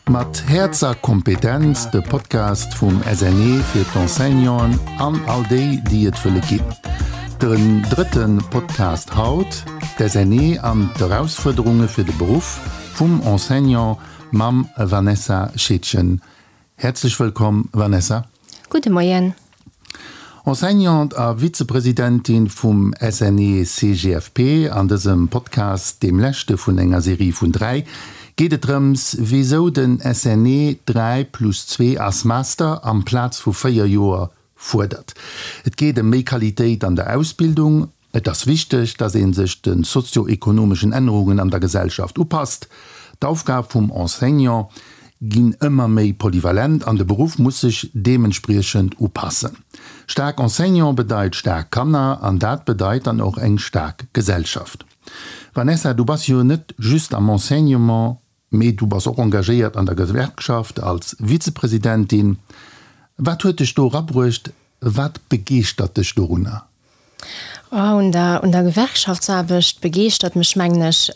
Mat Häerz a Kompetenz, de Podcast vum SNE fir d'Enseignanten an all déi, déi et wëlle ginn. Den drëtte Podcast haut, d'SNE an d'Erausfuerderunge fir de Beruff vum Enseignant mam Vanessa Scheedgen. Häerzlech wëllkomm, Vanessa. Gudde Moien. Enseignante a Vizepresidentin vum SNE-CGFP. An dësem Podcast, deem leschte vun enger Serie vun 3, geet et drëms, wisou den SNE 3 plus 2 as Master amplaz vu 4 Joer fuerdert. Et geet ëm méi Qualitéit an der Ausbildung, Et ass wichteg, dass ee sech de sozio-ekonomeschen Ännerungen an der Gesellschaft upasst. D'Aufgab vum Enseignant ginn ëmmer méi polyvalent an de Beruff muss sech deementspriechend upassen. Staark Enseignant bedeit staark Kanner an dat bedeit dann och eng staark Gesellschaft. Vanessa, du bass jo net just am Enseignement, mee du bass och engagéiert an der Gewerkschaft als Vizepresidentin. Wat huet dech do erabruecht? Wat begeeschtert dech dorunner? Oh, un der, un der Gewerkschaftsaarbecht begeeschtert mech, mengen ech,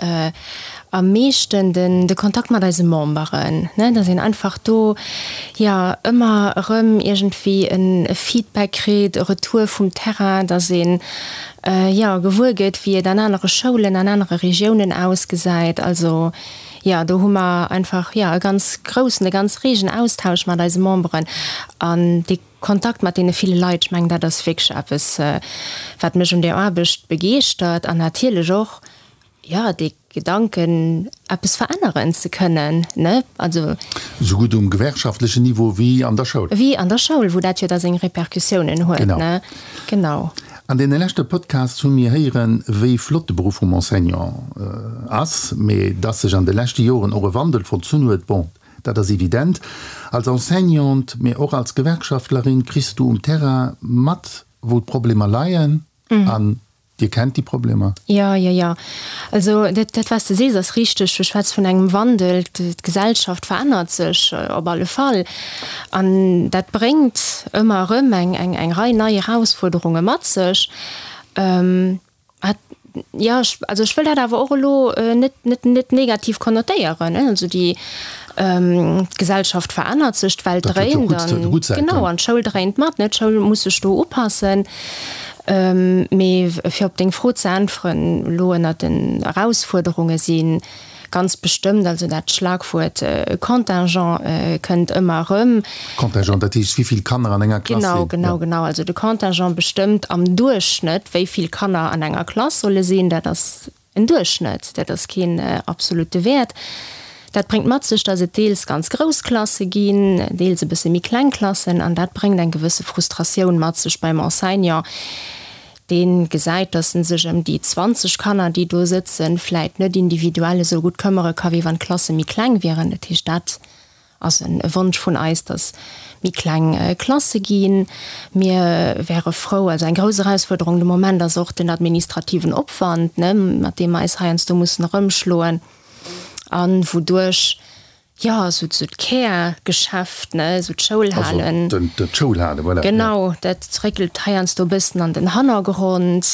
am meeschten den, de Kontakt mat eise Memberen, ne, dass een einfach do, jo, ëmmer erëm iergendwéi en e Feedback kritt, e Retour vum Terrain, dass een, jo, gewuer gëtt, wéi et an anere Schoulen, an anere Regiounen ausgesäit. Also, jo, do hu mer einfach, jo, e ganz groussen, e ganz reegen Austausch mat eise Memberen an dee Kontakt mat deene ville Leit, ech mengen, dat ass wierklech eppes, wat mech un där Aarbecht begeeschtert an natierlech och, jo, dee Gedanken, eppes veränneren ze kënnen, ne, also. Esou gutt um gewerkschaftlechen Niveau wéi an der Schoul. Wéi an der Schoul, wou dat jo da seng Repercussiounen huet, ne, genau. An deene leschte Podcasts hu mir héieren, wéi flott de Beruff vum Enseignant ass, mee dass sech an de leschte Joren och e Wandel vollzunn huet, bon, Dat ass evident. Als Enseignante, mee och als Gewerkschaftlerin kriss du um Terrain mat, wou d'Problemer leien. An Dir kennt déi Problemer. Jo, jo, jo. Also dat, dat wat s de sees, ass richteg. Du schwätz vun engem Wandel. D'Gesellschaft verännert sech op alle Fall. An dat bréngt ëmmer erëm eng, eng, eng Rei nei Erausfuerderunge mat sech. Hat, jo, ech, also ech wëll dat awer och elo net, net, net negativ konnotéieren, ne. Also déi, d'Gesellschaft verännert sech, d'Welt Dat huet jo dréint gutt, an, gutt Säiten. genau, an d'Schoul dréint mat, ne. D'Schoul muss sech do upassen. Mee fir op deng Fro ze äntweren, elo ënnert den Erausfuerderunge si Ganz bestëmmt, also dat Schlagwuert Contingent kënnt ëmmer erëm. Contingent, dat heescht, wéi vill Kanner an enger Klass sinn? Genau, genau, genau. Also de Contingent bestëmmt am Duerchschnëtt, wéi vill Kanner an enger Klass solle sinn. Dat ass en Duerchschnëtt, dat ass keen absolute Wäert. Dat bréngt mat sech, datt et deels ganz grouss Klasse ginn, deels e bësse méi kleng Klassen an dat bréngt eng gewësse Frustratioun mat sech beim Enseignant, Deen gesäit, dass en sech ëm déi 20 Kanner, déi do sëtzen, vläit net individuell esou gutt këmmere ka wéi wann d'Klasse méi kleng wieren. Dat heescht, dat ass e Wonsch vun eis, dass méi kleng Klasse ginn. Mir wäre frou, also eng grouss Erausfuerderung de Moment ass och den administrativen Opwand, ne, mat deem mer eis heiansdo mussen erëmschloen an wouduerch Jo, esou esou d'Kärgeschäft, ne, esou d'Schoulhalen. Also d'Schoulhalen, voilà. Genau, dat réckelt heiansdo e bëssen an den Hannergrond.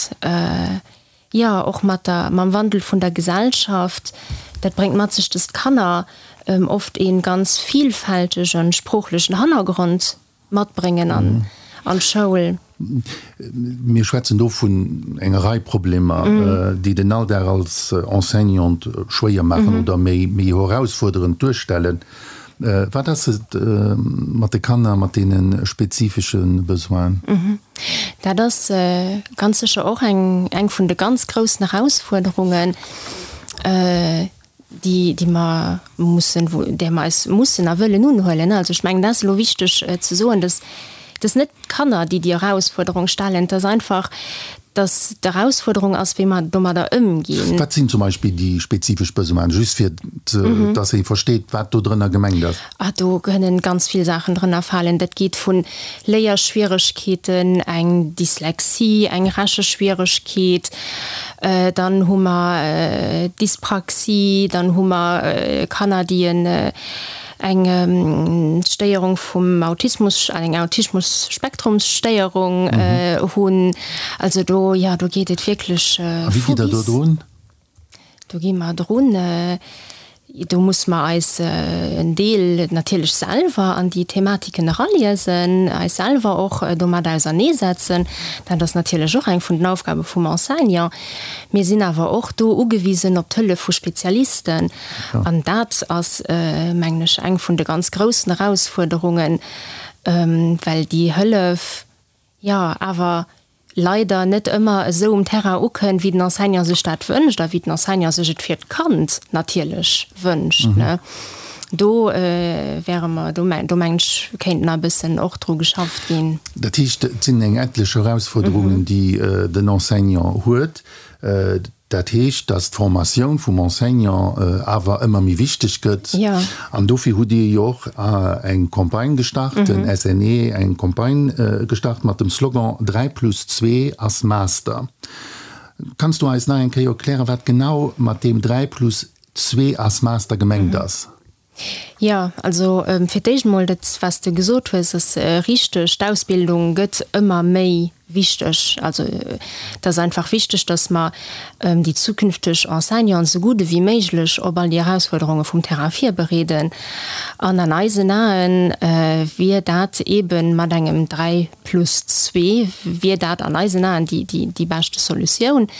Jo, och mat der, mam Wandel vun der Gesellschaft, dat bréngt mat sech, dass d'Kanner oft ee ganz vielfältegen sproochlechen Hannergrond matbréngen an d'Schoul. Mir schwätzen do vun enger Rei Problemer, déi den Alldag als Enseignant schwéier maachen oder méi erausfuerderend duerstellen. Wat ass et mat de Kanner mat deene spezifesche Besoinen? Dat ass ganz sécher och eng vun de ganz groussen Erausfuerderungen. déi, déi mer mussen, wou, där mer eis mussen a wëllen unhuelen. Also ech mengen, dat ass elo wichteg ze soen, dass dass net d'Kanner, déi déi Erausfuerderung stellen, et ass einfach, dass d'Erausfuerderung ass, wéi mer domadder ëmginn. Wat sinn zum Beispill déi spezifesch Besoinen, just fir dass ee versteet, wat do drënner gemengt ass? Ah, do kënnen ganz vill Saachen drënner falen. Dat geet vu Léierschwieregkeeten, eng Dyslexie, eng Recheschwieregkeet, Dann hu mer Dyspraxie, dann hu mer Kanner, déi eng Stéierung vum Autismus, eng Autismus-Spektrumsstéierung hunn. Also do, jo, do geet et wierklech vu bis. A wéi gitt Der do drun? Do gi mer drun. Do musse mer eis en Deel natierlech selwer an déi Thematiken eraliesen, eis selwer och domat auserneesetzen. Dat ass natierlech och eng vun den Aufgabe vum Enseignant. Mir sinn awer och do ugewisen op d'Hëllef vu Spezialisten. An dat ass, mengen ech, eng vun de ganz groussen Erausfuerderungen, well déi Hëllef, jo, awer leider net ëmmer esou um Terrain ukënnt, wéi den Enseignant sech dat wënscht a wéi den Enseignant sech et fir d'Kand natierlech wënscht. Do wäre mer, do mengen ech, kéint nach e bëssen och dru geschafft ginn. Dat heescht, et sinn eng etlech Erausfuerderungen, déi den Enseignant huet. Dat heescht, dass d'Formatioun vum Enseignant awer ëmmer méi wichteg gëtt. An dofir hutt Dir jo och eng Campagne gestart, den SNE eng Campagne gestart mat dem Slogan 3 plus 2 ass Master. Kanns du eis nach eng Kéier erklären, wat genau mat deem 3 plus 2 ass Master gemengt ass? Jo, also fir d'éischt emol, dat wat s de gesot hues, ass richteg. D'Ausbildung gëtt ëmmer méi wichteg. Also et ass einfach wichteg, datt mer déi zukünfteg Enseignanten esou gutt ewéi méiglech op all déi Erausfuerderunge vum Terrain virbereeden. An an eisen Ae wier dat eebe mat engem 3 plus 2 wier dat an eisen Aen déi beschte Solutioun.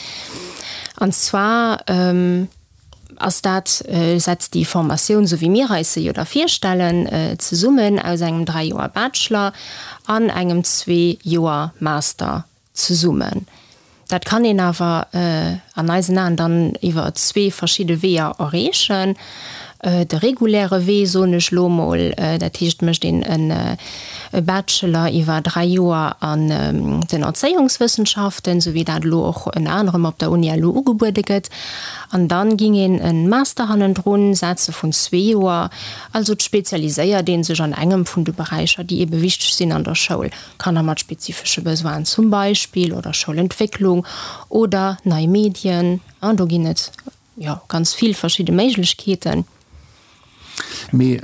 An zwar ass dat, setzt déi Formatioun, esou wéi mir eis se jo da virstellen, zesummen aus engem 3 Joer Bachelor an engem 2 Joer Master zesummen. Dat kann een awer an eisen Aen dann iwwer zwee verschidde Weeër erreechen. De reguläre Wee, soen ech elo emol, dat heescht, et mécht een e Bachelor iwwer 3 Joer an den Erzéiungswëssenschaften, esou wéi dat elo och ënner anerem op der Uni elo ugebuede gëtt. An dann ging een en Master hannendrun setzen vun zwee Joer. Also et spezialiséiert een sech an engem vun de Beräicher, déi ebe wichteg sinn an der Schoul, Kanner mat spezifesche Besoinen zum Beispill oder Schoulentwécklung oder nei Medien. Do ginn et jo ganz vill verschidde Méiglechkeeten. Mee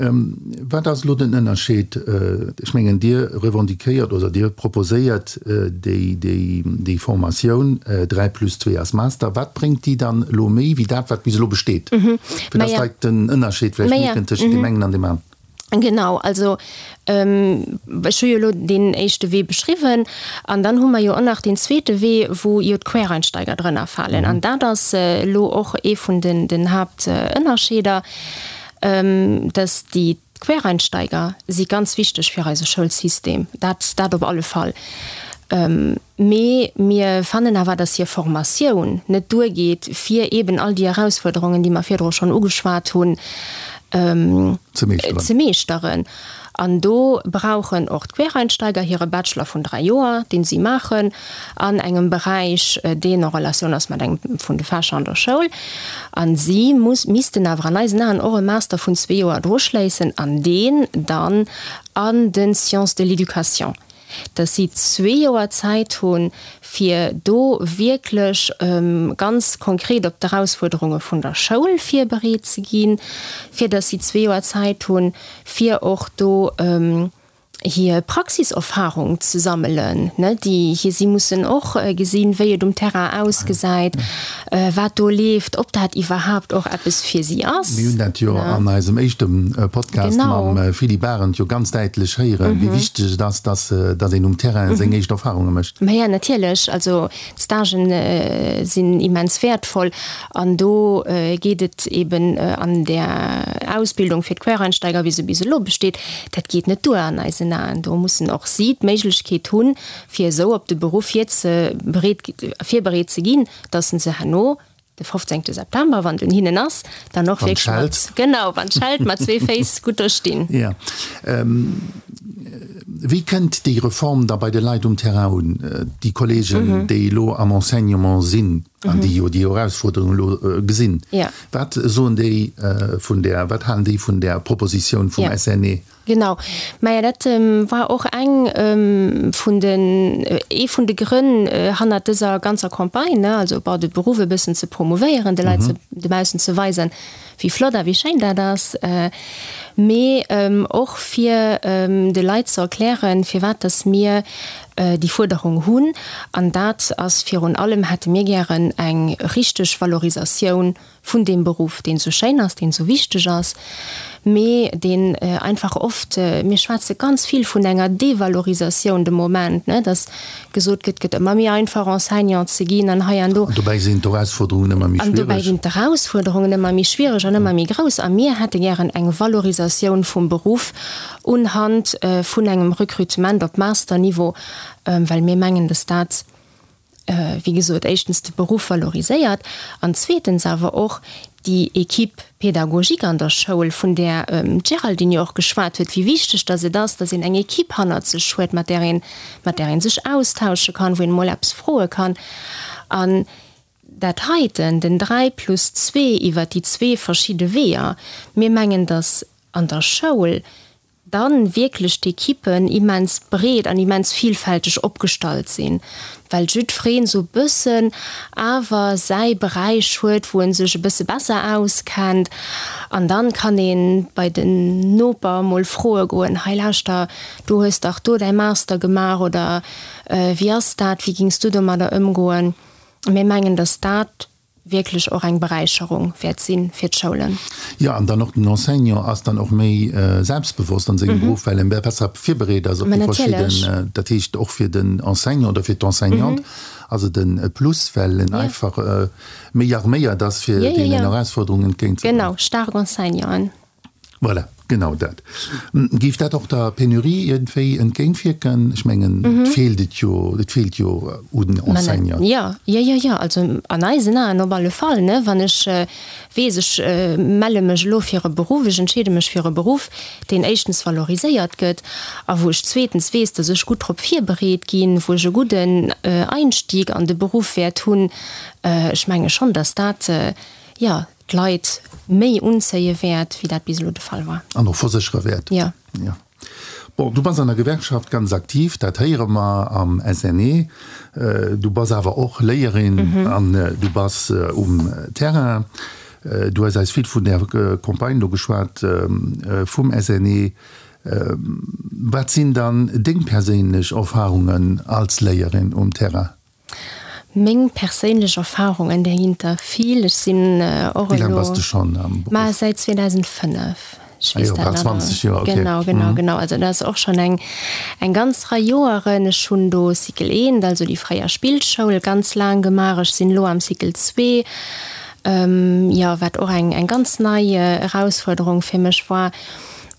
wat ass elo den Ënnerscheed? Ech mengen, Dir revendiquéiert oder Dir proposéiert déi Formatioun 3 plus 2 als Master. Wat bréngt déi dann elo méi wéi dat, wat bis elo besteet? Fir dass d'Leit den Ënnerscheed vläicht mierken tëschent deem engen an deem aneren. Genau, also ech hu jo elo deen éischte Wee beschriwwen an dann hu mer jo och nach deen zweete Wee, wou jo d'Quereinsteiger drënner falen. An dat ass elo och ee vun den Haaptënnerscheeder, dass déi Quereinsteiger si ganz wichteg fir eise Schoulsystem, dat dat op alle Fall. Mee mir fannen awer, dass hir Formatioun net duergeet, fir eeben all déi Erausfuerderungen, déi mer virdru schonn ugeschwat hunn, ze meeschteren. An do brauchen och d'Quereinsteiger hire Bachelor vun dräi Joer, dee si maachen an engem Beräich, deen en Relatioun ass mat engem vun de Fächer an der Schoul. A si missten awer an eisen Aen och e Master vun zwee Joer droschléissen an deen dann an de Sciences de l'éducation. dass si zwee Joer Zäit hunn, fir do wierklech ganz konkret op d'Erausfuerderunge vun der Schoul virbereet ze ginn, fir dass si zwee Joer Zäit hunn, fir och do hir Praxiserfahrung ze sammelen, ne, déi hir, si mussen och gesinn, wéi et um Terrain ausgesäit, wat do leeft, ob dat iwwerhaapt och eppes fir si ass. Mir hunn dat jo an eisem éischte Podcast mam Philippe Arendt jo ganz däitlech héieren, wéi wichteg et ass, dass een um Terrain seng éischt Erfarunge mécht. Maja, natierlech. Also d'Stagen sinn immens wäertvoll an do geet et eben an där Ausbildung fir d'Quereinsteiger, wéi se bis elo besteet, dat geet net duer an eisen Aen. Do mussen och si d'Méiglechkeet hunn, fir esou op de Beruff virbereet ze ginn, dass se herno de 15. September, wann et un hinnen ass, dann och wierklech mat, genau, wann d'Schellt, mat zwee Féiss gutt do stinn. Jo. Wéi kënnt déi Reform da bei de Leit um Terrain un, déi Kollegen, déi elo am Enseignement sinn an déi jo déi Erausfuerderung elo gesinn? Wat soen déi vun där, wat halen déi vun där Propositioun vum SNE? Genau, maja dat war och eng vun den, ee vun de Grënn hannert dëser ganzer Campagne, ne, also bon de Beruff e bëssen ze promouvéieren, de Leit ze dobaussen ze weisen, wéi flott a wéi schéin dat ass. Mee och fir de Leit ze erklären, firwat dass mir déi Fuerderung hunn. An dat ass virun allem, hätte mir gären eng richteg Valorisatioun vun deem Beruff, deen esou schéin ass, deen esou wichteg ass, mee deen einfach oft, mir schwätze ganz vill vun enger Devalorisatioun de Moment, ne, dass gesot gëtt, et gëtt ëmmer méi einfach Enseignant ze ginn an hei an do. An dobäi sinn d'Erausfuerderungen ëmmer méi schwiereg. An dobäi ginn d'Erausfuerderungen ëmmer méi schwiereg an ëmmer méi grouss. A mir hätte gären eng Valorisatioun vum Beruff unhand vun engem Recrutement op Masterniveau, well mir mengen, dass dat, wéi gesot, éischtens de Beruff valoriséiert an zweetens awer och déi Équipe pédagogique an der Schoul, vun där d'Géraldine jo och geschwat huet, wéi wichteg dass et ass, dass een eng Équipe hannert sech huet, mat där een, mat där ee sech austausche kann, wou een emol eppes froe kann. An dat heiten, den 3 plus zwee iwwert déi zwee verschidde Weeër, mir mengen, dass an der Schoul dann wierklech d'Equippen immens breet an immens vielfälteg opgestallt sinn, well jiddfereen esou e bëssen awer säi Beräich huet, wou en sech e bësse besser auskennt an dann kann een bei den Noper mol froe goen, hei lauschter, du hues dach do däi Master gemaach oder wéi ass dat, wéi gings du domadder ëmgoen? Mir mengen, dass dat wierklech och eng Beräicherung wäert si fir d'Schoulen. Jo, an dann och den Enseignant ass dann och méi selbstbewosst an sengem Beruff, well en besser virbereet ass op déi verschidden, dat heescht och fir den Enseignant oder fir d'Enseignante ass et e Plus, well en einfach méi arméiert ass, fir deenen Erausforderungen entgéintzegoen. Genau, staark Enseignanten. Voilà, genau dat. Géif dat och der Penurie iergendwéi entgéintwierken? Ech mengen, et feelt et jo, et feelt jo un Enseignanten. Jo, jo, jo, jo. Also an eisen Aen op alle Fall, ne. Wann ech weess, ech melle mech elo fir e Beruff, ech entscheede mech fir e Beruff, deen éischtens valoriséiert gëtt a wou ech zweetens weess, datt ech gutt drop virbereet ginn, wou ech e gudden Einstieg an de Beruff wäert hunn, ech menge schonn, datt dat, jo, d'Leit méi unzéie wäert, wéi dat bis elo de Fall war. An och verséchere wäert. Jo. Jo. Bon, du bass an der Gewerkschaft ganz aktiv, dat héiere mer am SNE. Du bass awer och Léierin an du bass um Terrain. Du hues eis vill vun där Campagne do geschwat vum SNE. Wat sinn dann deng perséinlech Erfarungen als Léierin um Terrain? Meng perséinlech Erfahrungen, där ginn der vill. Ech sinn och elo. Wéi laang bass de schonn am Beruff? Ma säit 2005. Ech weess dat nach. 20 Joer, okay. Genau, genau, genau. Also dat ass och schonn eng, eng ganz Rei Joeren. Ech hunn do Cycle eent, also déi fréier Spillschoul, ganz laang gemaach. Ech sinn elo am Cycle zwee, jo, wat och eng, eng ganz nei Erausfuerderung fir mech war.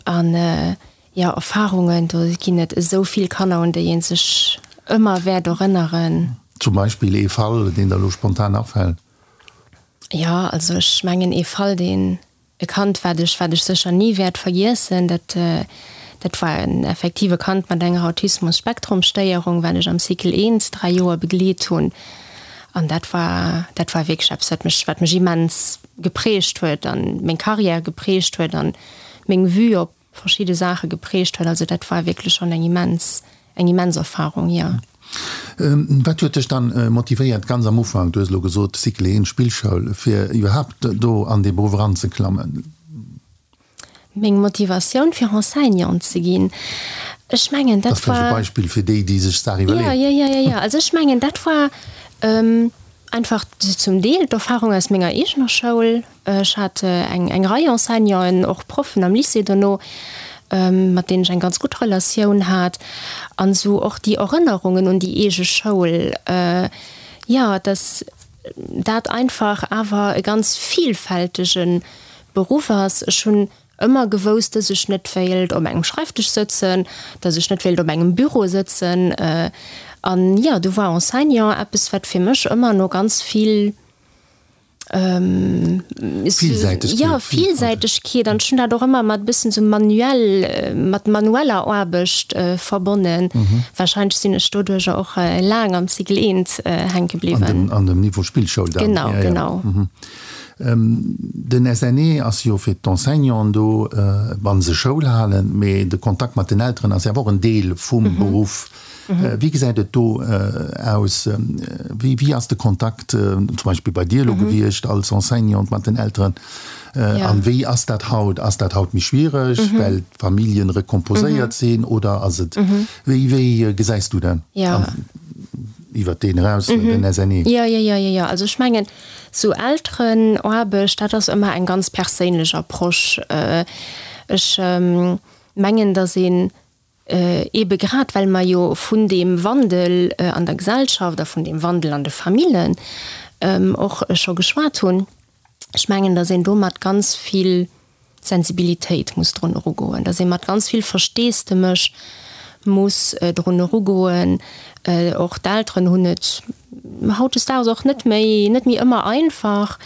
An Jo, Erfahrungen, do ginn et esou vill Kanner, un déi ee sech ëmmer wäert erënneren. Zum Beispill ee Fall, deen der elo spontan afält? Jo, also ech mengen ee Fall, deen, e Kand, wat ech, wat ech sécher ni wäert vergiessen, dat, dat war en effektiv e Kand mat enger Autismus-Spektrum-Stéierung, wat ech am Cycle I 3 Joer begleet hunn. An dat war, dat war wierklech eppes, wat mech, wat mech immens geprägt huet an meng Carrière geprägt huet an meng Vue op verschidde Saache geprägt huet. Also dat war wierklech schonn eng immens, eng immens Erfahrung, jo. Wat huet dech dann motivéiert ganz am Ufank, du hues elo gesot Cycle 1, Spillschoul, fir iwwerhaapt do an dee Beruff eranzeklammen? Meng Motivatioun fir Enseignante ze ginn, ech mengen dat war. Dat ass vläicht e Beispill fir déi, déi sech d'Saach iwwerleeën. Jo, jo, jo, jo. Also ech mengen dat war einfach zum Deel d'Erfahrung aus menger eegener Schoul. Ech hat eng eng Rei Enseignanten, och Proffen am Lycée dono, mat deenen ech eng ganz gutt Relatioun hat. An esou och déi Erënnerungen un déi eege Schoul, jo, dass dat einfach awer e ganz vielfältege Beruff ass. Ech hunn ëmmer gewousst, dass ech net wéilt op engem Schreifdësch sëtzen, dass ech net wéilt op engem Büro sëtzen. An jo, du war Enseignant eppes, wat fir mech ëmmer no ganz vill Villsäitegkeet. Jo, Villsäitegkeet. An ech hunn dat och ëmmer mat e bëssen esou manuell, mat manueller Aarbecht verbonnen. Warscheinlech sinn ech doduercher och laang am Cycle I hänke bliwwen. An dem Niveau Spillschoul dann. Genau, genau. Den SNE ass jo fir d'Enseignanten do, wa se Schoul halen, mee de Kontakt mat den Elteren ass jo awer och en Deel vum Beruff. Wéi gesäit et do aus? Wéi, wéi ass de Kontakt zum Beispill bei dir elo gewiescht als Enseignante mat den Elteren? An wéi ass dat haut? Ass dat haut méi schwiereg, well d'Familljen recomposéiert sinn oder ass et, wéi, wéi gesäis du dat? Iwwert deen eraus, den SNE. Jo, jo, jo, jo, jo. Also ech mengen, sou Elterenaarbecht, dat ass ëmmer eng ganz perséinlech Approche. Ech mengen, datt een Eebe grad well mer jo vun deem Wandel an der Gesellschaft a vun deem Wandel an de Famillen och scho geschwat hunn. Ech mengen, datt een do mat ganz vill Sensibilitéit muss drun erugoen, datt ee mat ganz vill Versteesdemech muss drun erugoen. Och d'Elteren hunn et hautdesdaags och net méi, net méi ëmmer einfach.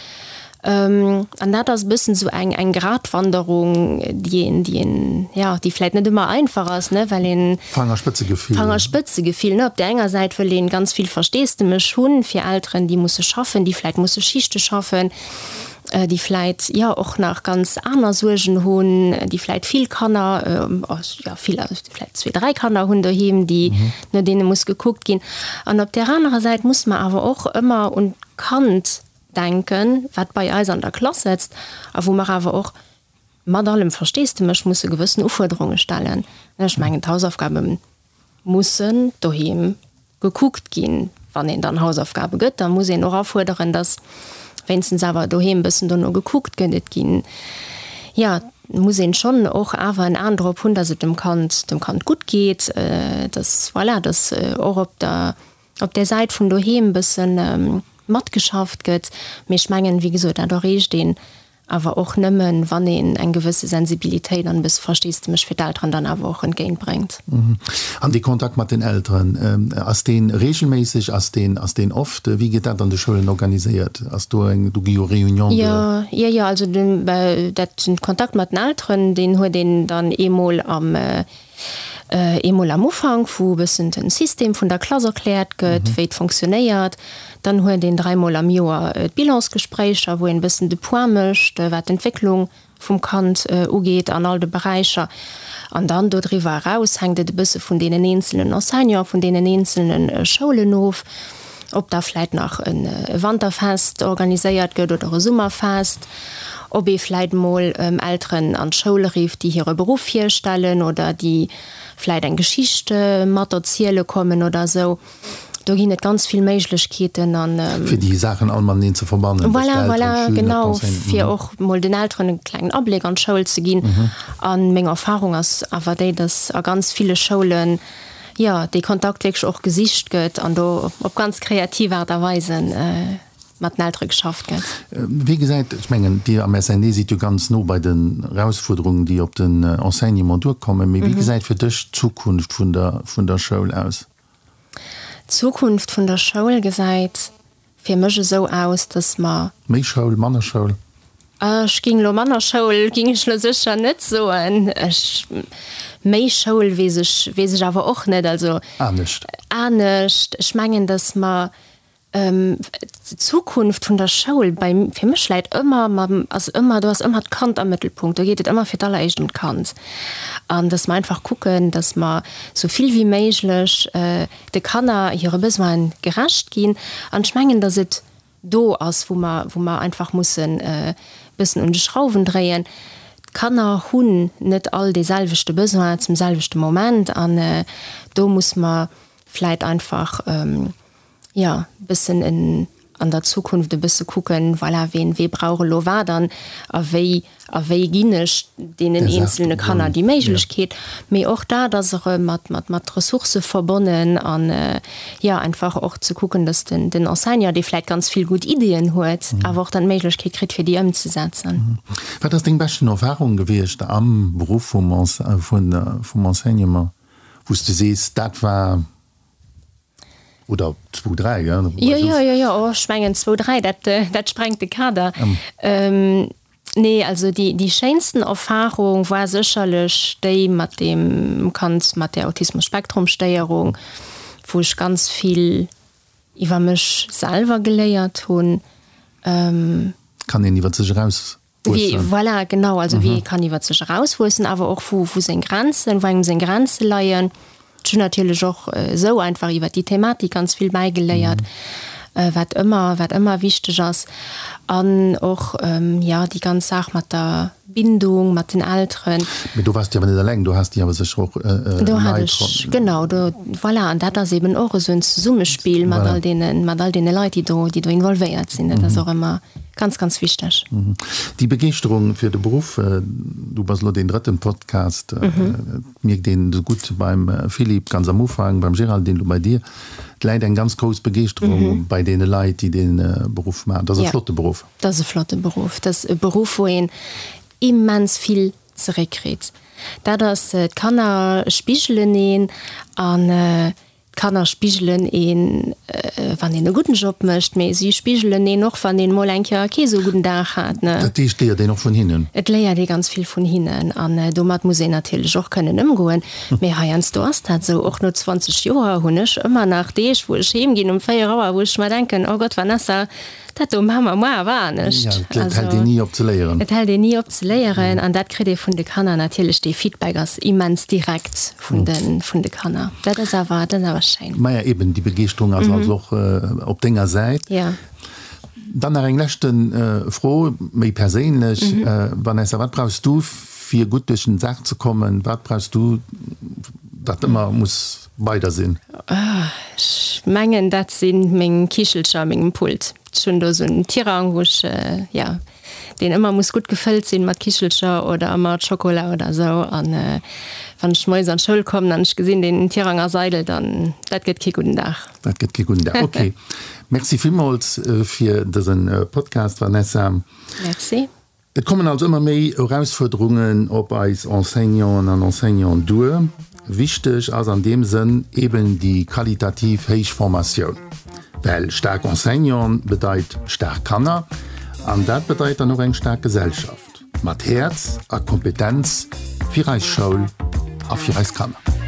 An dat ass e bëssen esou eng, eng Gratwanderung, déi een, déi een, jo, déi vläit net ëmmer einfach ass, ne, well een. Fangerspëtzegefill. Fangerspëtzegefill, ne. Op där enger Säit wëll een ganz vill Versteesdemech hunn fir Elteren, déi musse schaffen, déi vläit musse Schichte schaffen, déi vläit, jo, och nach ganz aner Suergen hunn, déi vläit vill Kanner, jo, vill, vläit zwee, dräi Kanner hunn doheem, déi, no deene muss gekuckt ginn. An op där anerer Säit muss mer awer och ëmmer un d'Kand denken, wat bei eis an der Klass sëtzt a wou mer awer och mat allem Versteesdemech musse gewëssen Ufuerderunge stellen. Ech mengen, d'Hausaufgabe mussen doheem gekuckt ginn. Wann een dann Hausaufgabe gëtt, da muss een och afuerderen, datt wéinstens awer doheem e bëssen dono gekuckt gëtt. Et ginn, jo, et muss een schonn och awer en Aen drop hunn, datt et dem Kand, dem Kand gutt geet, datt, voilà, datt och op der op där Säit vun doheem bëssen matgeschafft gëtt. Mee ech mengen, wéi gesot, dat erreecht een awer och nëmmen, wann een eng gewësse Sensibilitéit an e bësse Versteesdemech fir d'Elteren dann awer och entgéintbréngt. An dee Kontakt mat den Elteren, ass dee reegelméisseg, ass deen, ass deen oft? Wéi gëtt dat an de Schoulen organiséiert? Ass do eng, do gi jo Réunions de. Jo, jo, jo, also den, dat, den Kontakt mat den Elteren, deen huet een dann eemol am, Eemol am Ufank, wou e bëssen den System vun der Klass erkläert gëtt, wéi et fonctionnéiert. Dann huet een dräimol am Joer d'Bilansgespréicher, wou een e bëssen de Point mécht, wat d'Entwécklung vum Kand ugeet an all de Beräicher. An dann dodriwwer eraus hänkt et e bësse vun deenen eenzelnen Enseignanten, vun deenen eenzelne Schoulen of, ob da vläit nach e Wanterfest organiséiert gëtt oder e Summerfest, ob ee vläit mol Elteren an d'Schoul rifft, déi hire Beruff virstellen oder déi vläit eng Geschicht mat erziele kommen oder esou. Do ginn et ganz vill Méiglechkeeten an. Fir déi Saachen all mateneen ze verbannen. Voilà, voilà, genau, fir och mol den Elteren e klengen Abléck an d'Schoul ze ginn. A meng Erfahrung ass awer déi, dass a ganz ville Schoulen, jo, dee Kontakt wierklech och gesicht gëtt an do op ganz kreativ Aart a Weisen mat den Eltere geschafft gëtt. Wéi gesäit, ech mengen, Dir am SNE sidd jo ganz no bei den Erausfuerderungen, déi op den Enseignement duerkommen, mee wéi gesäit fir dech d'Zukunft vun der, vun der Schoul aus? D'Zukunft vun der Schoul gesäit fir mech esou aus, dass mer. Méi Schoul, manner Schoul? Ech ging elo manner Schoul ging ech elo sécher net soen. Ech, méi Schoul weess ech, weess ech awer och net. Also. Anescht. Anescht. Ech mengen, dass mer d'Zukunft vun der Schoul bei, fir mech läit ëmmer mam, ass ëmmer, do ass ëmmer d'Kand am Mëttelpunkt. Do geet et ëmmer fir d'alleréischt ëm d'Kand. An dass mer einfach kucken, dass mer esou vill wéi méiglech de Kanner hire Besoine gerecht ginn. An ech mengen, dass et do ass, wou mer, wou mer einfach mussen e bëssen un de Schrauwen dréien. D'Kanner hunn net all dee selwechte Besoin zum selwechte Moment an do muss mer vläit einfach, jo, e bëssen en an der Zukunft e bësse kucken, voilà, ween, wee brauch elo wat an a wéi a wéi ginn ech deenen eenzelne Kanner déi Méiglechkeet. Mee och dat ass erëm mat, mat, mat Ressourcë verbonnen an, jo, einfach och ze kucken, dass den, den Enseignant, dee vläicht ganz vill gutt Ideeën huet, awer och dann d'Méiglechkeet kritt, fir déi ëmzesetzen. Wat ass deng beschten Erfahrung gewiescht am Beruff vum, vun, vum Enseignement, wou s de sees, dat war. Oder zwou, dräi, gell? Jo, jo, jo, jo, oh, ech mengen zwou, dräi, dat, dat sprengt de Kader. Nee, also déi, déi schéinsten Erfahrung war sécherlech déi mat deem Kand mat där Autismus-Spektrum-Stéierung, wou ech ganz vill iwwer mech selwer geléiert hunn. Kann een iwwer sech eraus Wéi, voilà, genau, also wéi ee kann iwwer sech erauswuessen, awer och wou, wou seng Grenzen, wou engem seng Grenze leien. Ech hunn natierlech och esou einfach iwwer déi Thematik ganz vill bäigeléiert, wat ëmmer, wat ëmmer wichteg ass. An och, jo, déi ganz Saach mat der Bindung mat den Elteren. Mee do waars de awer net eleng, do has de awer sécher och Leit. Do hat ech, genau, do, voilà. An dat ass eben och esou en Zesummespill mat all deene, mat all deene Leit, déi do, déi do involvéiert sinn. Dat ass och ëmmer ganz, ganz wichteg. Déi Begeeschterung fir de Beruff, du bass elo deen drëtten Podcast, et mierkt een esou gutt beim Philippe ganz am Ufank, beim Géraldine, elo bei dir, et läit eng ganz grouss Begeeschterung bei deene Leit, déi dee Beruff maachen. Dat ass e flotte Beruff. Dat ass e flotte Beruff. Dat ass e Beruff, wou een immens vill zeréckkritt. Dat ass, d'Kanner spigelen een an d'Kanner spigelen een, wann een e gudden Job mécht, mee si spigelen een och, wann een mol eng Kéier kee sou gudden Dag hat. Dat heescht, et léiert een och vun hinnen? Et léiert ee ganz vill vun hinnen an domat muss een natierlech och kënnen ëmgoen. Mee heiansdo ass dat esou. Och no 20 Joer hunn ech ëmmer nach Deeg, wou ech heem ginn um 4 Auer, wou ech mer denken, Oh Gott, Vanessa, Dat do maache mer muer awer anescht. Ja, et hält een ni op ze léieren. Et hält een ni op ze léieren an dat kritt ee vun de Kanner natierlech. Dee Feedback ass immens direkt vun de, vun de Kanner. Dat ass awer, dat ass awer schéin. Maja, eben, déi Begeeschterung ass also och op denger Säit. Ja. Dann nach eng leschte Fro, méi perséinlech. Vanessa, wat brauchs du, fir gutt duerch den Dag ze kommen? Wat brauchs du, dat ëmmer muss bei der sinn? Ech mengen dat si meng Kichelcher a mengem Pult. Ech hunn do esou en Tirang, wou ech, jo, deen ëmmer muss gutt gefëllt sinn mat Kichelcher oder mat Schokola oder esou. An wann ech moies an d'Schoul kommen an ech gesinn, deen Tirang ass eidel, dann, dat gëtt kee gudden Dag. Dat gëtt kee gudden Dag, ok. Merci villmools fir dëse Podcast, Vanessa. Merci. Et kommen also ëmmer méi Erausfuerderungen op eis Enseignanten an Enseignanten duer. Wichteg ass an deem Sënn eben déi qualitativ héich Formatioun, well staark Enseignanten bedeit staark Kanner an dat bedeit dann och eng staark Gesellschaft mat Häerz a Kompetenz fir eis Schoul a fir eis Kanner.